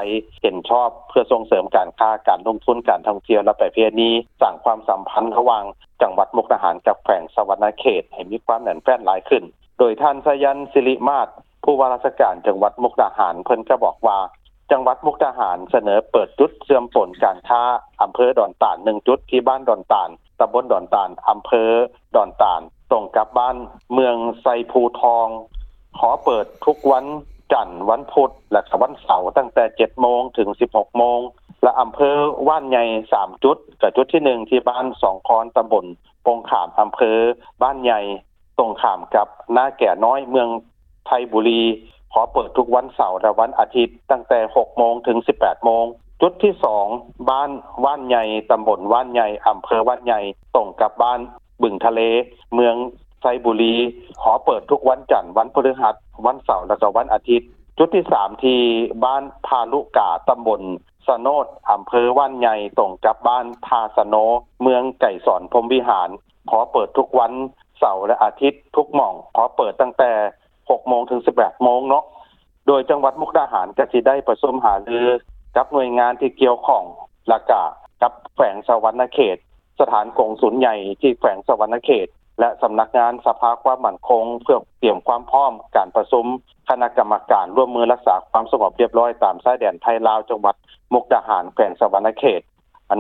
ເຫັນຊອບ ເພື່ອສົ່ງເສີມການຄ້າ, ການລົງທຶນ, ການທ່ອງທ່ຽວ ແລະ ປະເພນີ, ສ້າງຄວາມສຳພັນລະຫວ່າງຈັງຫວັດມຸກດາຫານກັບແຂວງສະຫວັນນະເຂດໃຫ້ມີຄວາມແໜ້ນແຟ້ນຫຼາຍຂຶ້ນ. ໂດຍທ່ານ ສາຍັນ ສິລິມາດ ຜູ້ວ່າລາຊະການຈັງຫວັດມຸກດາຫານ ເພິ່ນກໍບອກວ່າ ຈັງຫວັດມຸກດາຫານສະເໜີເປີດຈຸດເຊື່ອມປົນການຄ້າອຳເພີດອນຕານໜຶ່ງຈຸດ ທີ່ບ້ານດອນຕານ ຕຳບົນດອນຕານ ອຳເພີດອນຕານ ຕົງກັບບ້ານເມືອງໄຊພູທອງ ຂໍເປີດທຸກວັນຈັນ, ວັນພຸດ ແລະ ກະວັນເສົາ ຕັ້ງແຕ່ເຈັດໂມງເຖິງສິບຫົກໂມງ ແລະ ອຳເພີຫວ່ານໃຫຍ່ສາມຈຸດ ກະຈຸດທີໜຶ່ງ ທີ່ບ້ານສອງຄອນ ຕຳບົນປົງຂາມ ອຳເພີບ້ານໃຫຍ່ ຕົງຂ້າມກັບນາແກນ້ອຍ ເມືອງໄທບູລີ ຂໍເປີດທຸກວັນເສົາ ແລະ ວັນອາທິດ ຕັ້ງແຕ່ຫົກໂມງເຖິງສິບແປດໂມງ. ຈຸດທີສອງ ບ້ານຫວ່ານໃຫຍ່ ຕຳບົນຫວ່ານໃຫຍ່ ອຳເພີຫວ່ານໃຫຍ່ ຕົງກັບບ້ານ ບຶງທະເລ ເມືອງໄຊບູລີ ຫໍເປີດທຸກວັນຈັນ, ວັນພຶດຫັດ, ວັນເສົາ ແລະ ກໍວັນອາທິດ. ຈຸດທີສາມ ທີ່ບ້ານທ່າລຸກາ ຕຳບົນສະໂນດ ອຳເພີບ້ານໃຫຍ່ ຕົງກັບບ້ານທ່າສະໂນ ເມືອງໄກສອນ ພົມວິຫານ ຫໍເປີດທຸກວັນເສົາ ແລະ ອາທິດທຸກໝ່ອງ, ຫໍເປີດຕັ້ງແຕ່ຫົກໂມງເຖິງສິບແປດໂມງເນາະ. ໂດຍຈັງຫວັດມຸກດາຫານກໍຊິໄດ້ປະຊຸມຫາລືກັບໜ່ວຍງານທີ່ກ່ຽວຂ້ອງ ແລະ ກະກັບແຂວງສະຫວັນນະເຂດ, ສະຖານກົງສຸນໃຫຍ່ທີ່ແຂວງສະຫວັນນະເຂດ ແລະ ສຳນັກງານສະພາຄວາມໝັ້ນຄົງ ເພື່ອກຽມຄວາມພ້ອມການປະຊຸມຄະນະກຳມະການຮ່ວມມືຮັກສາຄວາມສະຫງົບຮຽບຮ້ອຍຕາມຊາຍແດນໄທລາວ ຈັງຫວັດມຸກດາຫານ ແຂວງສະຫວັນນະເຂດ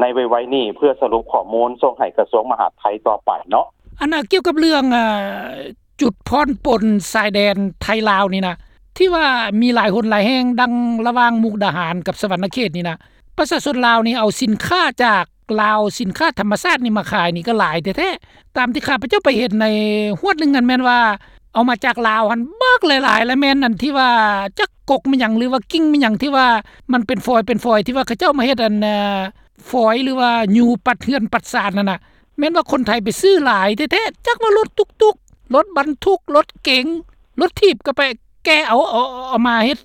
ໃນໄວໆນີ້ ເພື່ອສະຫຼຸບຂໍ້ມູນສົ່ງໃຫ້ກະຊວງມະຫາດໄທຕໍ່ໄປເນາະ. ອັນນ່າ ກ່ຽວກັບເລື່ອງ ອາ ຈຸດຜ່ອນປົນຊາຍແດນໄທລາວນີ້ນະ ທີ່ວ່າມີຫຼາຍຫົນຫຼາຍແຫ່ງ ດັ່ງລະຫວ່າງມຸກດາຫານກັບສະຫວັນນະເຂດນີ້ນະ ປະຊາຊົນລາວນີ້ເອົາສິນຄ້າຈາກລາວ ສິນຄ້າທຳມະຊາດນີ້ມາຂາຍນີ້ກໍຫຼາຍແທ້ໆ. ຕາມທີ່ຂ້າພະເຈົ້າໄປເຫັນໃນຮວດໜຶ່ງຫັ້ນ ແມ່ນວ່າເອົາມາຈາກລາວຫັ້ນບັກຫຼາຍໆ ແລະ ແມ່ນອັນທີ່ວ່າຈັກກົກແມ່ນຫຍັງ ຫຼືວ່າກິ່ງແມ່ນຫຍັງ ທີ່ວ່າມັນເປັນຟອຍເປັນຟອຍ ທີ່ວ່າເຂົາເຈົ້າມາເຮັດອັນ ອາ ຟອຍ ຫຼືວ່າຢູ່ປັດເຮືອນປັດຊານຫັ້ນນະ ແມ່ນວ່າຄົນໄທໄປຊື້ຫຼາຍແທ້ໆ ຈັກວ່າລົດຕຸກໆ, ລົດບັນທຸກ, ລົດເກັງ, ລົດຖີບ ກໍໄປແກ່ເອົາ ເອົາ ເອົາມາເຮັດ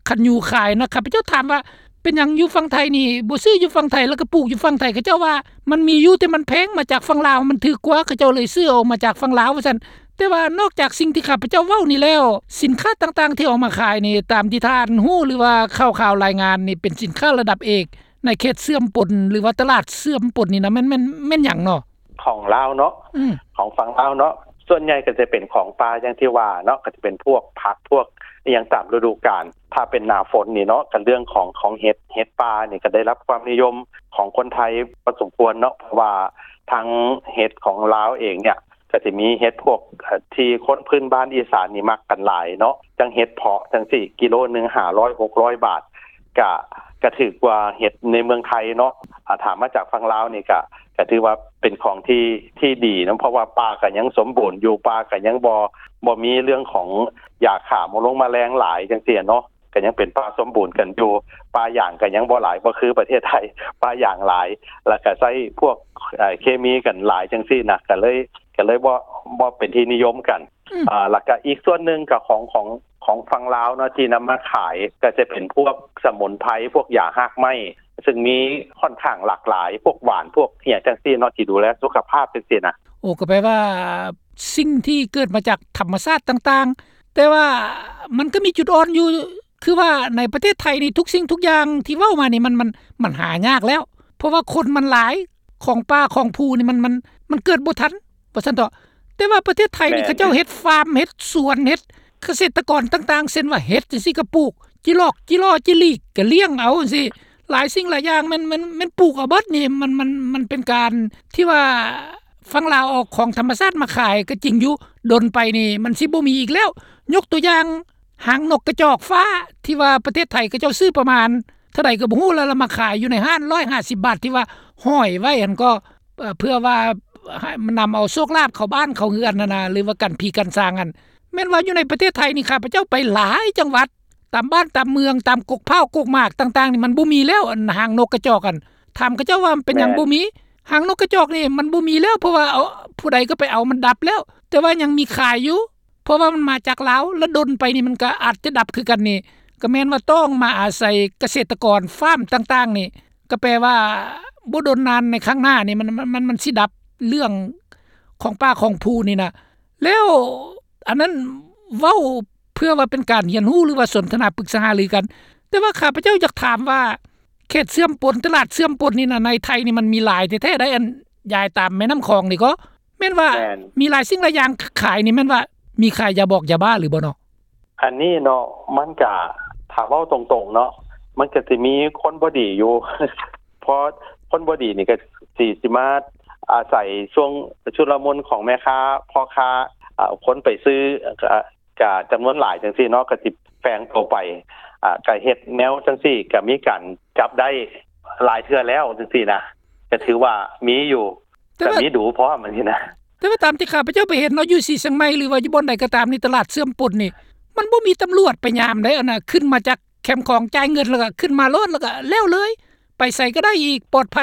ຄັນຍູຂາຍນະ. ຂ້າພະເຈົ້າຖາມວ່າ ເປັນຫຍັງຢູ່ຝັ່ງໄທນີ້ບໍ່ຊື້ຢູ່ຝັ່ງໄທ ແລ້ວກໍປູກຢູ່ຝັ່ງໄທ? ເຂົາເຈົ້າວ່າມັນມີຢູ່ ແຕ່ມັນແພງ, ມາຈາກຝັ່ງລາວມັນຖືກກວ່າ ເຂົາເຈົ້າເລີຍຊື້ເອົາມາຈາກຝັ່ງລາວ ວ່າຊັ້ນ. ແຕ່ວ່ານອກຈາກສິ່ງທີ່ຂ້າພະເຈົ້າເວົ້ານີ້ແລ້ວ ສິນຄ້າຕ່າງໆທີ່ເອົາມາຂາຍນີ້ ຕາມທີ່ທ່ານຮູ້ ຫຼືວ່າຂ່າວໆລາຍງານນີ້ ເປັນສິນຄ້າລະດັບເອກ ໃນເຂດເຊື່ອມປົນ ຫຼືວ່າຕະຫຼາດເຊື່ອມປົນນີ້ນະ ແມ່ນ ແມ່ນ ແມ່ນຫຍັງເນາະ? ຂອງລາວເນາະ ອືມ ຂອງຝັ່ງລາວເນາະ ສ່ວນໃຫຍ່ກໍຈະເປັນຂອງປ່າ ຢ່າງທີ່ວ່າເນາະ ກໍຈະເປັນພວກຜັກ ພວກອີ່ຫຍັງຕາມລະດູການ. ຖ້າເປັນໜ້າຝົນນີ້ເນາະ ກໍເລື່ອງຂອງ ຂອງເຫັດ ເຫັດປ່ານີ້ກໍໄດ້ຮັບຄວາມນິຍົມຂອງຄົນໄທພໍສົມຄວນເນາະ ເພາະວ່າທັງເຫັດຂອງລາວເອງເນຍ ກໍຊິມີເຫັດພວກ ເອີ ທີ່ຄົນພື້ນບ້ານອີສານນີ້ມັກກັນຫຼາຍເນາະ ຈັ່ງເຫັດເຜາະຈັ່ງຊີ້ ກິໂລໜຶ່ງຫ້າຮ້ອຍຫົກຮ້ອຍບາດ ກະ ກະຖືກກວ່າເຫັດໃນເມືອງໄທເນາະ. ອາ ຖ້າມາຈາກຝັ່ງລາວນີ້ກະ ກະຖືວ່າເປັນຂອງທີ່ ທີ່ດີນຳ ເພາະວ່າປ່າກະຍັງສົມບູນຢູ່ ປ່າກະຍັງບໍ່ ບໍ່ມີເລື່ອງຂອງຢາຂ້າມະລົງມະແລງຫຼາຍຈັ່ງຊີ້ເນາະ ກະຍັງເປັນປ່າສົມບູນກັນຢູ່. ປ່າຢາງກະຍັງບໍ່ຫຼາຍ ບໍ່ຄືປະເທດໄທ ປ່າຢາງຫຼາຍ ແລ້ວກະໃຊ້ພວກ ເອີ ເຄມີກັນຫຼາຍຈັ່ງຊີ້ນະ ກະເລີຍ ກະເລີຍບໍ່ ບໍ່ເປັນທີ່ນິຍົມກັນ. ອືມ ອາ ແລ້ວກະອີກສ່ວນໜຶ່ງກະຂອງ ຂອງ ຂອງຝັ່ງລາວເນາະ ທີ່ນຳມາຂາຍ ກະຈະເປັນພວກສະໝຸນໄພ ພວກຢາຮາກໄມ້ ຊຶ່ງມີຂ້ອນຂ້າງຫຼາກຫຼາຍ ພວກຫວານ ພວກອີ່ຫຍັງຈັ່ງຊີ້ເນາະ ທີ່ດູແລສຸຂະພາບຈັ່ງຊີ້ນະ. ໂອ້ ກໍແປວ່າສິ່ງທີ່ເກີດມາຈາກທຳມະຊາດຕ່າງໆ ແຕ່ວ່າມັນກໍມີຈຸດອ່ອນຢູ່ ຄືວ່າໃນປະເທດໄທນີ້ ທຸກສິ່ງທຸກຢ່າງທີ່ເວົ້າມານີ້ ມັນ ມັນ ມັນຫາຍາກແລ້ວ ເພາະວ່າຄົນມັນຫຼາຍ ຂອງປ່າຂອງພູນີ້ ມັນ ມັນ ມັນເກີດບໍ່ທັນ ວ່າຊັ້ນເຖາະ. ແຕ່ວ່າປະເທດໄທນີ້ ແມ່ນ ເຂົາເຈົ້າເຮັດຟາມ ເຮັດສວນ ເຮັດກະເສດຕະກອນຕ່າງໆ ເຊັ່ນວ່າເຫັດຈັ່ງຊີ້ກໍປູກ ຈີຫຼອກ ຈີຫຼໍ່ ຈີຫຼີກ ກໍລ້ຽງເອົາຈັ່ງຊີ້ ຫຼາຍສິ່ງຫຼາຍຢ່າງ ແມ່ນ ແມ່ນ ແມ່ນປູກເອົາເບິດນີ້. ມັນ ມັນ ມັນເປັນການທີ່ວ່າຝັ່ງລາວເອົາຂອງທຳມະຊາດມາຂາຍກໍຈິງຢູ່ ດົນໄປນີ້ມັນຊິບໍ່ມີອີກແລ້ວ. ຍົກຕົວຢ່າງ ຫາງນົກກະຈອກຟ້າ ທີ່ວ່າປະເທດໄທເຂົາເຈົ້າຊື້ປະມານເທົ່າໃດກໍບໍ່ຮູ້ ແລ້ວລະມາຂາຍຢູ່ໃນຮ້ານຮ້ອຍຫ້າສິບບາດ ທີ່ວ່າຫ້ອຍໄວ້ຫັ້ນກໍ ເອີ ເພື່ອວ່າໃຫ້ນຳເອົາໂຊກລາບເຂົ້າບ້ານເຂົ້າເຮືອນຫັ້ນນະ ຫຼືວ່າກັນຜີກັນສາງຫັ້ນ. ແມ່ນວ່າຢູ່ໃນປະເທດໄທນີ້ ຂ້າພະເຈົ້າໄປຫຼາຍຈັງຫວັດ ຕາມບ້ານຕາມເມືອງ ຕາມກົກພ້າວກົກໝາກຕ່າງໆນີ້ ມັນບໍ່ມີແລ້ວ ອັນຫາງນົກກະຈອກຫັ້ນ. ຖາມເຂົາເຈົ້າວ່າເປັນຫຍັງ ແມ່ນ ບໍ່ມີ? ຫາງນົກກະຈອກນີ້ມັນບໍ່ມີແລ້ວ ເພາະວ່າເອົາ ຜູ້ໃດກໍໄປເອົາ ມັນດັບແລ້ວ ແຕ່ວ່າຍັງມີຂາຍຢູ່. ເພາະວ່າມັນມາຈາກລາວ ລະດົນໄປນີ້ມັນກໍອາດຈະດັບຄືກັນນີ້ ກໍແມ່ນວ່າຕ້ອງມາອາໄສກະເສດຕະກອນຟາມຕ່າງໆນີ້ ກໍແປວ່າບໍ່ດົນນານໃນຂ້າງໜ້ານີ້ ມັນ ມັນ ມັນ ມັນຊິດັບເລື່ອງຂອງປ່າຂອງພູນີ້ນະ. ແລ້ວອັນນັ້ນເວົ້າເພື່ອວ່າເປັນການຮຽນຮູ້ ຫຼືວ່າສົນທະນາປຶກສາຫາລືກັນ. ແຕ່ວ່າຂ້າພະເຈົ້າຢາກຖາມວ່າ ເຂດເຊື່ອມປົນ ຕະຫຼາດເຊື່ອມປົນນີ້ນະ ໃນໄທນີ້ມັນມີຫຼາຍແທ້ໆໄດ໋ ອັນຍາຍຕາມແມ່ນ້ຳຂອງນີ້ກໍ ແມ່ນວ່າ ແມ່ນ ມີຫຼາຍສິ່ງຫຼາຍຢ່າງຂາຍນີ້ ແມ່ນວ່າມີຂາຍຢາບອກຢາບ້າຫຼືບໍ່ເນາະ? ອັນນີ້ເນາະ ມັນກະ ຖ້າເວົ້າຕົງໆເນາະ ມັນກະຊິມີຄົນບໍ່ດີຢູ່ ເພາະຄົນບໍ່ດີນີ້ກະຊິ ຊິມາອາໄສຊ່ວງຊຸລະມຸນຂອງແມ່ຄ້າ ພໍ່ຄ້າ ອາ ຄົນໄປຊື້ ກະ ກະຈຳນວນຫຼາຍຈັ່ງຊີ້ເນາະ ກະຊິແຝງໂຕໄປ ອາ ກະເຮັດແນວຈັ່ງຊີ້ ກະມີການຈັບໄດ້ຫຼາຍເທື່ອແລ້ວຈັ່ງຊີ້ນະ ກະຖືວ່າມີຢູ່ ແຕ່ວ່າ ກະມີດູພ້ອມຈັ່ງຊີ້ນະ. ແຕ່ວ່າຕາມທີ່ຂ້າພະເຈົ້າໄປເຫັນເນາະ ຢູ່ສີຊຽງໃໝ່ ຫຼືວ່າຢູ່ບ່ອນໃດກໍຕາມນີ້ ຕະຫຼາດເຊື່ອມປົນນີ້ ມັນບໍ່ມີຕຳຫຼວດໄປຍາມໃດ໋ ອັນນະ ຂຶ້ນມາຈາກແຄມຂອງ ຈ່າຍເງິນແລ້ວກໍຂຶ້ນມາໂລດ ແລ້ວກໍແລ້ວເລີຍ ໄປໃສກໍໄດ້ອີກ ປອດໄພ.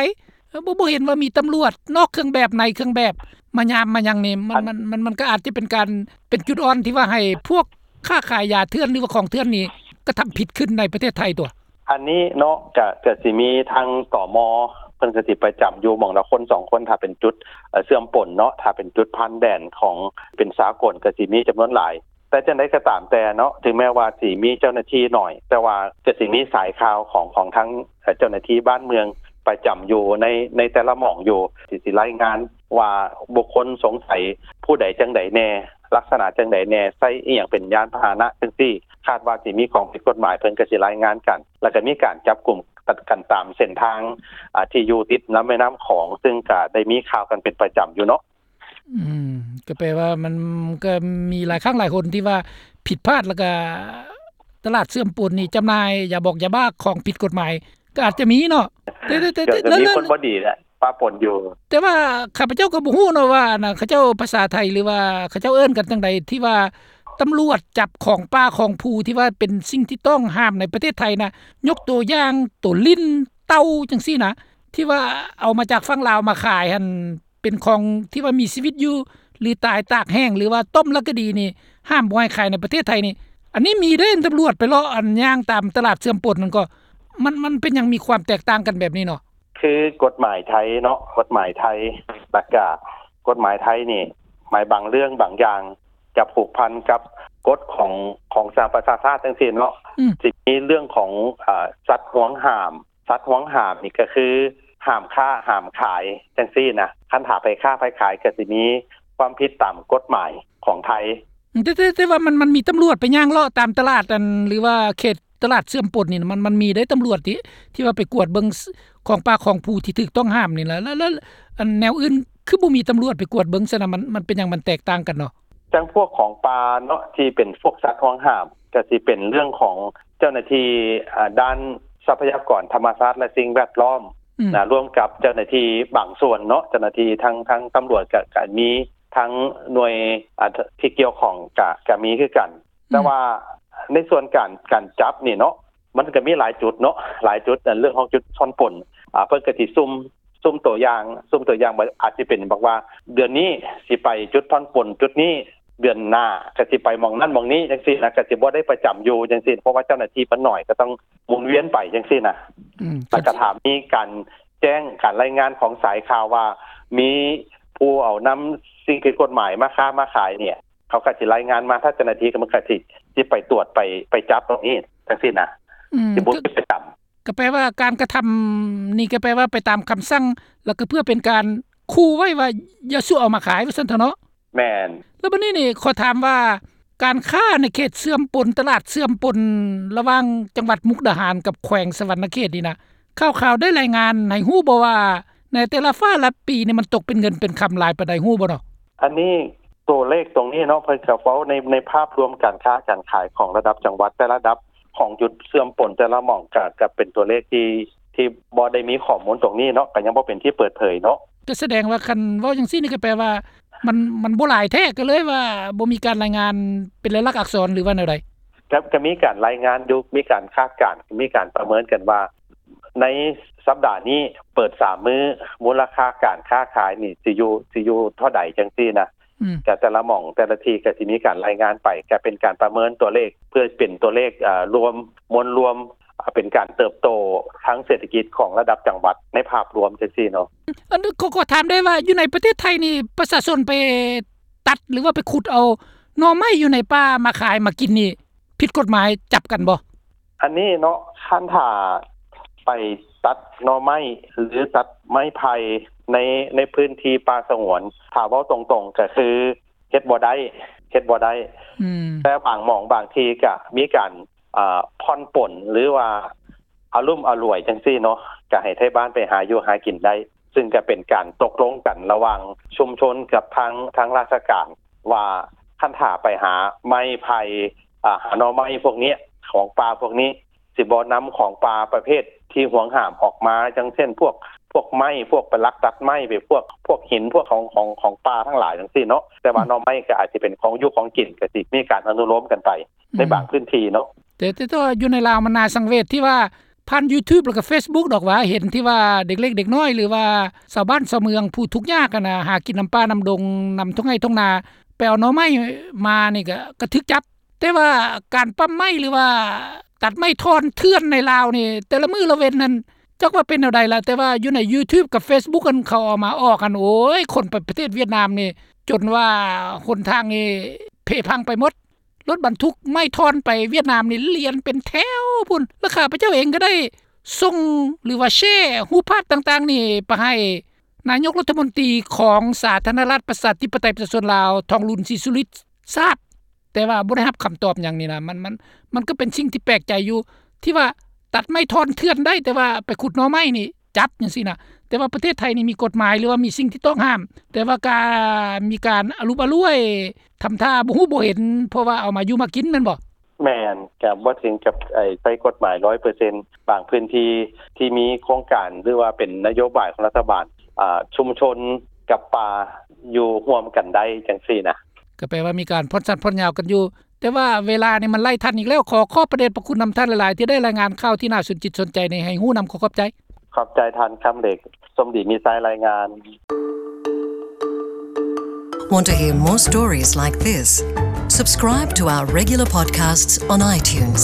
ເອີ ບໍ່ ບໍ່ເຫັນວ່າມີຕຳຫຼວດນອກເຄື່ອງແບບ ໃນເຄື່ອງແບບ ມາຍາມມາຫຍັງນີ້ ມັນ ອັນ ມັນ ມັນ ມັນກໍອາດຈະເປັນການ ເປັນຈຸດອ່ອນທີ່ວ່າໃຫ້ພວກຄ້າຂາຍຢາເຖື່ອນ ຫຼືວ່າຂອງເຖື່ອນນີ້ກະທຳຜິດຂຶ້ນໃນປະເທດໄທຕົວະ. ອັນນີ້ເນາະ ກະ ກະຊິມີທາງ ຕມ ເພິ່ນກະຊິປະຈຳຢູ່ໝ່ອງລະຄົນສອງຄົນ ຖ້າເປັນຈຸດ ເອີ ເຊື່ອມປົນເນາະ ຖ້າເປັນຈຸດຜ່ານແດນຂອງ ເປັນສາກົນ ກະຊິມີຈຳນວນຫຼາຍ. ແຕ່ຈັ່ງໃດກໍຕາມແຕ່ເນາະ ເຖິງແມ້ວ່າຊິມີເຈົ້າໜ້າທີ່ໜ້ອຍ ແຕ່ວ່າກໍຊິມີສາຍຂ່າວຂອງ ຂອງທາງ ເອີ ເຈົ້າໜ້າທີ່ບ້ານເມືອງປະຈຳຢູ່ໃນ ໃນແຕ່ລະໝ່ອງຢູ່ ທີ່ຊິລາຍງານວ່າບຸກຄົນສົງໄສຜູ້ໃດຈັ່ງໃດແດ່ ລັກສະນະຈັ່ງໃດແດ່ ໃຊ້ອີ່ຫຍັງເປັນຍານພາຫະນະຈັ່ງຊີ້ ຄາດວ່າຊິມີຂອງຜິດກົດໝາຍ ເພິ່ນກໍຊິລາຍງານກັນ ແລ້ວກໍມີການຈັບກຸມກັນຕາມເສັ້ນທາງ ອາ ທີ່ຢູ່ຕິດລຳແມ່ນ້ຳຂອງ ຊຶ່ງກໍໄດ້ມີຂ່າວກັນເປັນປະຈຳຢູ່ເນາະ. ອືມ ກໍແປວ່າມັນກໍມີຫຼາຍຄັ້ງຫຼາຍຫົນທີ່ວ່າຜິດພາດ ແລ້ວກໍຕະຫຼາດເຊື່ອມປົນນີ້ຈຳໜ່າຍຢາບອກຢາບ້າຂອງຜິດກົດໝາຍ ກໍອາດຈະມີເນາະ ແຕ່ ແຕ່ ແຕ່ ກໍ ແຕ່ ກໍມີ ແລ້ວ ຄົນບໍ່ດີແຫຼະປະປົນຢູ່. ແຕ່ວ່າຂ້າພະເຈົ້າກໍບໍ່ຮູ້ເນາະວ່າ ອັນນ່າ ເຂົາເຈົ້າພາສາໄທ ຫຼືວ່າເຂົາເຈົ້າເອີ້ນກັນຈັ່ງໃດ ທີ່ວ່າຕຳຫຼວດຈັບຂອງປ່າຂອງພູທີ່ວ່າເປັນສິ່ງທີ່ຕ້ອງຫ້າມໃນປະເທດໄທນະ ຍົກຕົວຢ່າງໂຕລິ້ນ ເຕົ່າ ຈັ່ງຊີ້ນະ ທີ່ວ່າເອົາມາຈາກຝັ່ງລາວມາຂາຍຫັ້ນ ເປັນຂອງທີ່ວ່າມີຊີວິດຢູ່ ຫຼືຕາຍຕາກແຫ້ງ ຫຼືວ່າຕົ້ມແລ້ວກໍດີນີ້ ຫ້າມບໍ່ໃຫ້ຂາຍໃນປະເທດໄທນີ້. ອັນນີ້ມີເດ້ ຕຳຫຼວດໄປເລາະ ອັນ ຍ່າງຕາມຕະຫຼາດເຊື່ອມປົນນັ້ນກໍ ມັນ ມັນເປັນຫຍັງມີຄວາມແຕກຕ່າງກັນແບບນີ້ເນາະ? ຄືກົດໝາຍໄທເນາະ ກົດໝາຍໄທ ແລ້ວກະກົດໝາຍໄທນີ້ ໝາຍບາງເລື່ອງບາງຢ່າງຈະຜູກພັນກັບກົດຂອງ ຂອງສະຫະປະຊາຊາດຈັ່ງຊີ້ເນາະ ອືມ ຊິມີເລື່ອງຂອງ ອາ ສັດຫວງຫ້າມ ສັດຫວງຫ້າມນີ້ກໍຄືຫ້າມຄ້າຫ້າມຂາຍຈັ່ງຊີ້ນະ ຄັນຖ້າໃຜຄ້າໃຜຂາຍກໍຊິມີຄວາມຜິດຕາມກົດໝາຍຂອງໄທ. ແຕ່ ແຕ່ ແຕ່ວ່າມັນ ມັນມີຕຳຫຼວດໄປຍ່າງເລາະຕາມຕະຫຼາດ ອັນ ຫຼືວ່າເຂດຕະຫຼາດເຊື່ອມປົນນີ້ນະ ມັນ ມັນມີເດ້ຕຳຫຼວດທີ່ ທີ່ວ່າໄປກວດເບິ່ງ ຂອງປ່າຂອງພູທີ່ຖືກຕ້ອງຫ້າມນີ້ລະ ແລ້ວ ແລ້ວ ອັນ ແນວອື່ນຄືບໍ່ມີຕຳຫຼວດໄປກວດເບິ່ງຊັ້ນນະ ມັນ ມັນເປັນຫຍັງ ມັນແຕກຕ່າງກັນເນາະ? ຈັ່ງພວກຂອງປ່າເນາະ ທີ່ເປັນພວກສັດຫວງຫ້າມ ກໍຊິເປັນເລື່ອງຂອງເຈົ້າໜ້າທີ່ ອາ ດ້ານຊັບພະຍາກອນທຳມະຊາດ ແລະ ສິ່ງແວດລ້ອມ ອືມ ນະ ລວມກັບເຈົ້າໜ້າທີ່ບາງສ່ວນເນາະ ເຈົ້າໜ້າທີ່ທາງ ທາງຕຳຫຼວດ ກະ ກະມີ ທາງໜ່ວຍ ອາ ທີ່ກ່ຽວຂ້ອງ ກະ ກະມີຄືກັນ ອືມ ແຕ່ວ່າໃນສ່ວນການ ການຈັບນີ້ເນາະ ມັນກະມີຫຼາຍຈຸດເນາະ ຫຼາຍຈຸດ ອັນ ເລື່ອງຂອງຈຸດຜ່ອນປົນ ອາ ເພິ່ນກະຊິສຸ່ມ ສຸ່ມຕົວຢ່າງ ສຸ່ມຕົວຢ່າງວ່າ ອາດຊິເປັນບອກວ່າ ເດືອນນີ້ຊິໄປຈຸດຜ່ອນປົນຈຸດນີ້ ເດືອນໜ້າກໍຊິໄປໝ່ອງນັ້ນໝ່ອງນີ້ຈັ່ງຊີ້ນະ ກໍຊິບໍ່ໄດ້ປະຈຳຢູ່ຈັ່ງຊີ້ ເພາະວ່າເຈົ້າໜ້າທີ່ມັນໜ້ອຍ ກໍຕ້ອງໝູນວຽນໄປຈັ່ງຊີ້ນະ ອືມ ແລ້ວກໍຖ້າມີການແຈ້ງ ການລາຍງານຂອງສາຍຂ່າວວ່າ ມີຜູ້ເອົານຳສິ່ງຜິດກົດໝາຍມາຄ້າມາຂາຍນີ້ ເຂົາກໍຊິລາຍງານມາ ຖ້າເຈົ້າໜ້າທີ່ກໍມັນກໍຊິ ຊິໄປຕວດ ໄປ ໄປຈັບຕົງນີ້ຈັ່ງຊີ້ນະ ອືມ ຊິບໍ່ມີປະຈຳ. ກໍແປວ່າການກະທຳນີ້ກໍແປວ່າໄປຕາມຄຳສັ່ງ ແລ້ວກໍເພື່ອເປັນການຂູ່ໄວ້ວ່າຢ່າສູ່ເອົາມາຂາຍວ່າຊັ້ນເຖາະເນາະ? ແມ່ນ. ແລ້ວບັດນີ້ນີ້ຂໍຖາມວ່າ ການຄ້າໃນເຂດເຊື່ອມປົນ ຕະຫຼາດເຊື່ອມປົນລະຫວ່າງຈັງຫວັດມຸກດາຫານກັບແຂວງສະຫວັນນະເຂດນີ້ນະ ຂ່າວໆໄດ້ລາຍງານໃຫ້ຮູ້ບໍ່ວ່າ ໃນແຕ່ລະຟ້າລະປີນີ້ມັນຕົກເປັນເງິນເປັນຄຳຫຼາຍປານໃດ ຮູ້ບໍ່ເນາະ? ອັນນີ້ ຕົວເລກຕົງນີ້ເນາະ ເພິ່ນກໍເວົ້າໃນ ໃນພາບລວມການຄ້າການຂາຍຂອງລະດັບຈັງຫວັດ ແຕ່ລະລະດັບຂອງຈຸດເຊື່ອມປົນແຕ່ລະໝ່ອງ ກະ ກະເປັນຕົວເລກທີ່ ທີ່ບໍ່ໄດ້ມີຂໍ້ມູນຕົງນີ້ເນາະ ກະຍັງບໍ່ເປັນທີ່ເປີດເຜີຍເນາະ. ກໍສະແດງວ່າຄັນເວົ້າຈັ່ງຊີ້ນີ້ກໍແປວ່າມັນ ມັນບໍ່ຫຼາຍແທ້ ກໍເລີຍວ່າບໍ່ມີການລາຍງານເປັນລາຍລັກອັກສອນ ຫຼືວ່າແນວໃດ? ກໍ ກໍມີການລາຍງານຢູ່ ມີການຄາດການ ມີການປະເມີນກັນວ່າ ໃນສັບດານີ້ເປີດສາມມື້ ມູນລະຄ່າການຄ້າຂາຍນີ້ຊິຢູ່ ຊິຢູ່ເທົ່າໃດຈັ່ງຊີ້ນະ. ອືມ ກະແຕ່ລະໝ່ອງແຕ່ລະທີ່ກະຊິມີການລາຍງານໄປ ກະເປັນການປະເມີນຕົວເລກ ເພື່ອເປັນຕົວເລກ ອາ ລວມ ມວນລວມ ອາ ເປັນການເຕີບໂຕທາງເສດຖະກິດຂອງລະດັບຈັງຫວັດໃນພາບລວມຈັ່ງຊີ້ເນາະ. ອັນ ຂໍ ຂໍຖາມໄດ້ວ່າ ຢູ່ໃນປະເທດໄທນີ້ ປະຊາຊົນໄປຕັດ ຫຼືວ່າໄປຂຸດເອົາໜໍ່ໄມ້ຢູ່ໃນປ່າມາຂາຍມາກິນນີ້ ຜິດກົດໝາຍ ຈັບກັນບໍ່? ອັນນີ້ເນາະ ຄັນຖ້າໄປຕັດໜໍ່ໄມ້ ຫຼື ຕັດໄມ້ໄຜ່ໃນ ໃນພື້ນທີ່ປ່າສະຫງວນ ຖ້າເວົ້າຕົງໆ ກໍຄືເຮັດບໍ່ໄດ້ ເຮັດບໍ່ໄດ້. ອືມ ແຕ່ບາງໝ່ອງບາງທີ່ກໍມີການ ອາ ຜ່ອນປົນ ຫຼືວ່າອາລຸມອະຫຼວຍຈັ່ງຊີ້ເນາະ ກໍໃຫ້ໄທບ້ານໄປຫາຢູ່ຫາກິນໄດ້ ຊຶ່ງກໍເປັນການຕົກລົງກັນລະຫວ່າງຊຸມຊົນກັບທາງ ທາງລາຊະການ ວ່າຄັນຖ້າໄປຫາໄມ້ໄຜ່ ອາ ຫາໜໍ່ໄມ້ພວກນີ້ ຂອງປ່າພວກນີ້ ຊິບໍ່ນຳຂອງປ່າປະເພດທີ່ຫວງຫ້າມອອກມາ ຢ່າງເຊັ່ນ ພວກ ພວກໄມ້ ພວກໄປລັກຕັດໄມ້ໄປ ພວກ ພວກຫີນ ພວກຂອງ ຂອງ ຂອງປ່າທັງຫຼາຍຈັ່ງຊີ້ເນາະ. ແຕ່ວ່າ ອືມ ໜໍ່ໄມ້ກໍອາດຈະເປັນຂອງຢູ່ຂອງກິນ ກໍຊິມີການອະນຸໂລມກັນໄປ ອືມ ໃນບາງພື້ນທີ່ເນາະ. ແຕ່ ແຕ່ ແຕ່ວ່າຢູ່ໃນລາວມັນໜ້າສັງເວດທີ່ວ່າ ຜ່ານ YouTube ແລ້ວກໍ Facebook ດອກວ່າ ເຫັນທີ່ວ່າເດັກເລັກເດັກນ້ອຍ ຫຼືວ່າຊາວບ້ານຊາວເມືອງຜູ້ທຸກຍາກຫັ້ນນະ ຫາກິນນຳປ່ານຳດົງ ນຳທົ່ງໄຮ່ທົ່ງນາ ໄປເອົາໜໍ່ໄມ້ມານີ້ກໍ ກໍຖືກຈັບ. ແຕ່ວ່າການປ້ຳໄມ້ ຫຼືວ່າຕັດໄມ້ທ່ອນເຖື່ອນໃນລາວນີ້ ແຕ່ລະມື້ລະເວັນນັ້ນ ຈັກວ່າເປັນແນວໃດລະ ແຕ່ວ່າຢູ່ໃນ YouTube ກັບ Facebook ຫັ້ນ ເຂົາເອົາມາອອກຫັ້ນ ໂອ້ຍ ຄົນໄປປະເທດຫວຽດນາມນີ້ ຈົນວ່າຫົນທາງນີ້ເພພັງໄປໝົດ. ລົດບັນທຸກໄມ້ທ່ອນໄປຫວຽດນາມນີ້ລຽນເປັນແຖວພຸ້ນ ແລະ ຂ້າພະເຈົ້າເອງກໍໄດ້ສົ່ງ ຫຼືວ່າແຊຮູບພາບຕ່າງໆນີ້ໄປໃຫ້ນາຍົກລັດຖະມົນຕີຂອງສາທາລະນະລັດປະຊາທິປະໄຕປະຊາຊົນລາວ ທອງລຸນ ສີສຸລິດ ຊາບ. ແຕ່ວ່າບໍ່ໄດ້ຮັບຄຳຕອບຫຍັງນີ້ນະ ມັນ ມັນ ມັນກໍເປັນສິ່ງທີ່ແປກໃຈຢູ່ ທີ່ວ່າຕັດໄມ້ທ່ອນເຖື່ອນໄດ້ ແຕ່ວ່າໄປຂຸດໜໍ່ໄມ້ນີ້ຈັບຈັ່ງຊີ້ນະ. ແຕ່ວ່າປະເທດໄທນີ້ມີກົດໝາຍ ຫຼືວ່າມີສິ່ງທີ່ຕ້ອງຫ້າມ ແຕ່ວ່າກະມີການອະລຸບອະລ້ວຍ ທຳທ່າບໍ່ຮູ້ບໍ່ເຫັນ ເພາະວ່າເອົາມາຢູ່ມາກິນແມ່ນບໍ່? ແມ່ນ ກະບໍ່ເຖິງກັບ ໄອ້ ໃຊ້ກົດໝາຍຮ້ອຍເປີເຊັນ ບາງພື້ນທີ່ທີ່ມີໂຄງການ ຫຼືວ່າເປັນນະໂຍບາຍຂອງລັດຖະບານ ອາ ຊຸມຊົນກັບປ່າຢູ່ຮ່ວມກັນໄດ້ຈັ່ງຊີ້ນະ. ກໍແປວ່າມີການຜ່ອນສັ້ນຜ່ອນຍາວກັນຢູ່ ແຕ່ວ່າເວລານີ້ມັນໄລ່ທັນອີກແລ້ວ. ຂໍຂອບພະເດດພະຄຸນນຳທ່ານຫຼາຍໆ ທີ່ໄດ້ລາຍງານຂ່າວທີ່ໜ້າສົນຈິດສົນໃຈນີ້ໃຫ້ຮູ້ນຳ. ຂໍຂອບໃຈ. ຂອບໃຈທ່ານຄຳເຫຼັກ ສົມດີມີໄຊ ລາຍງານ. Want to hear more stories like this? Subscribe to our regular podcasts on iTunes.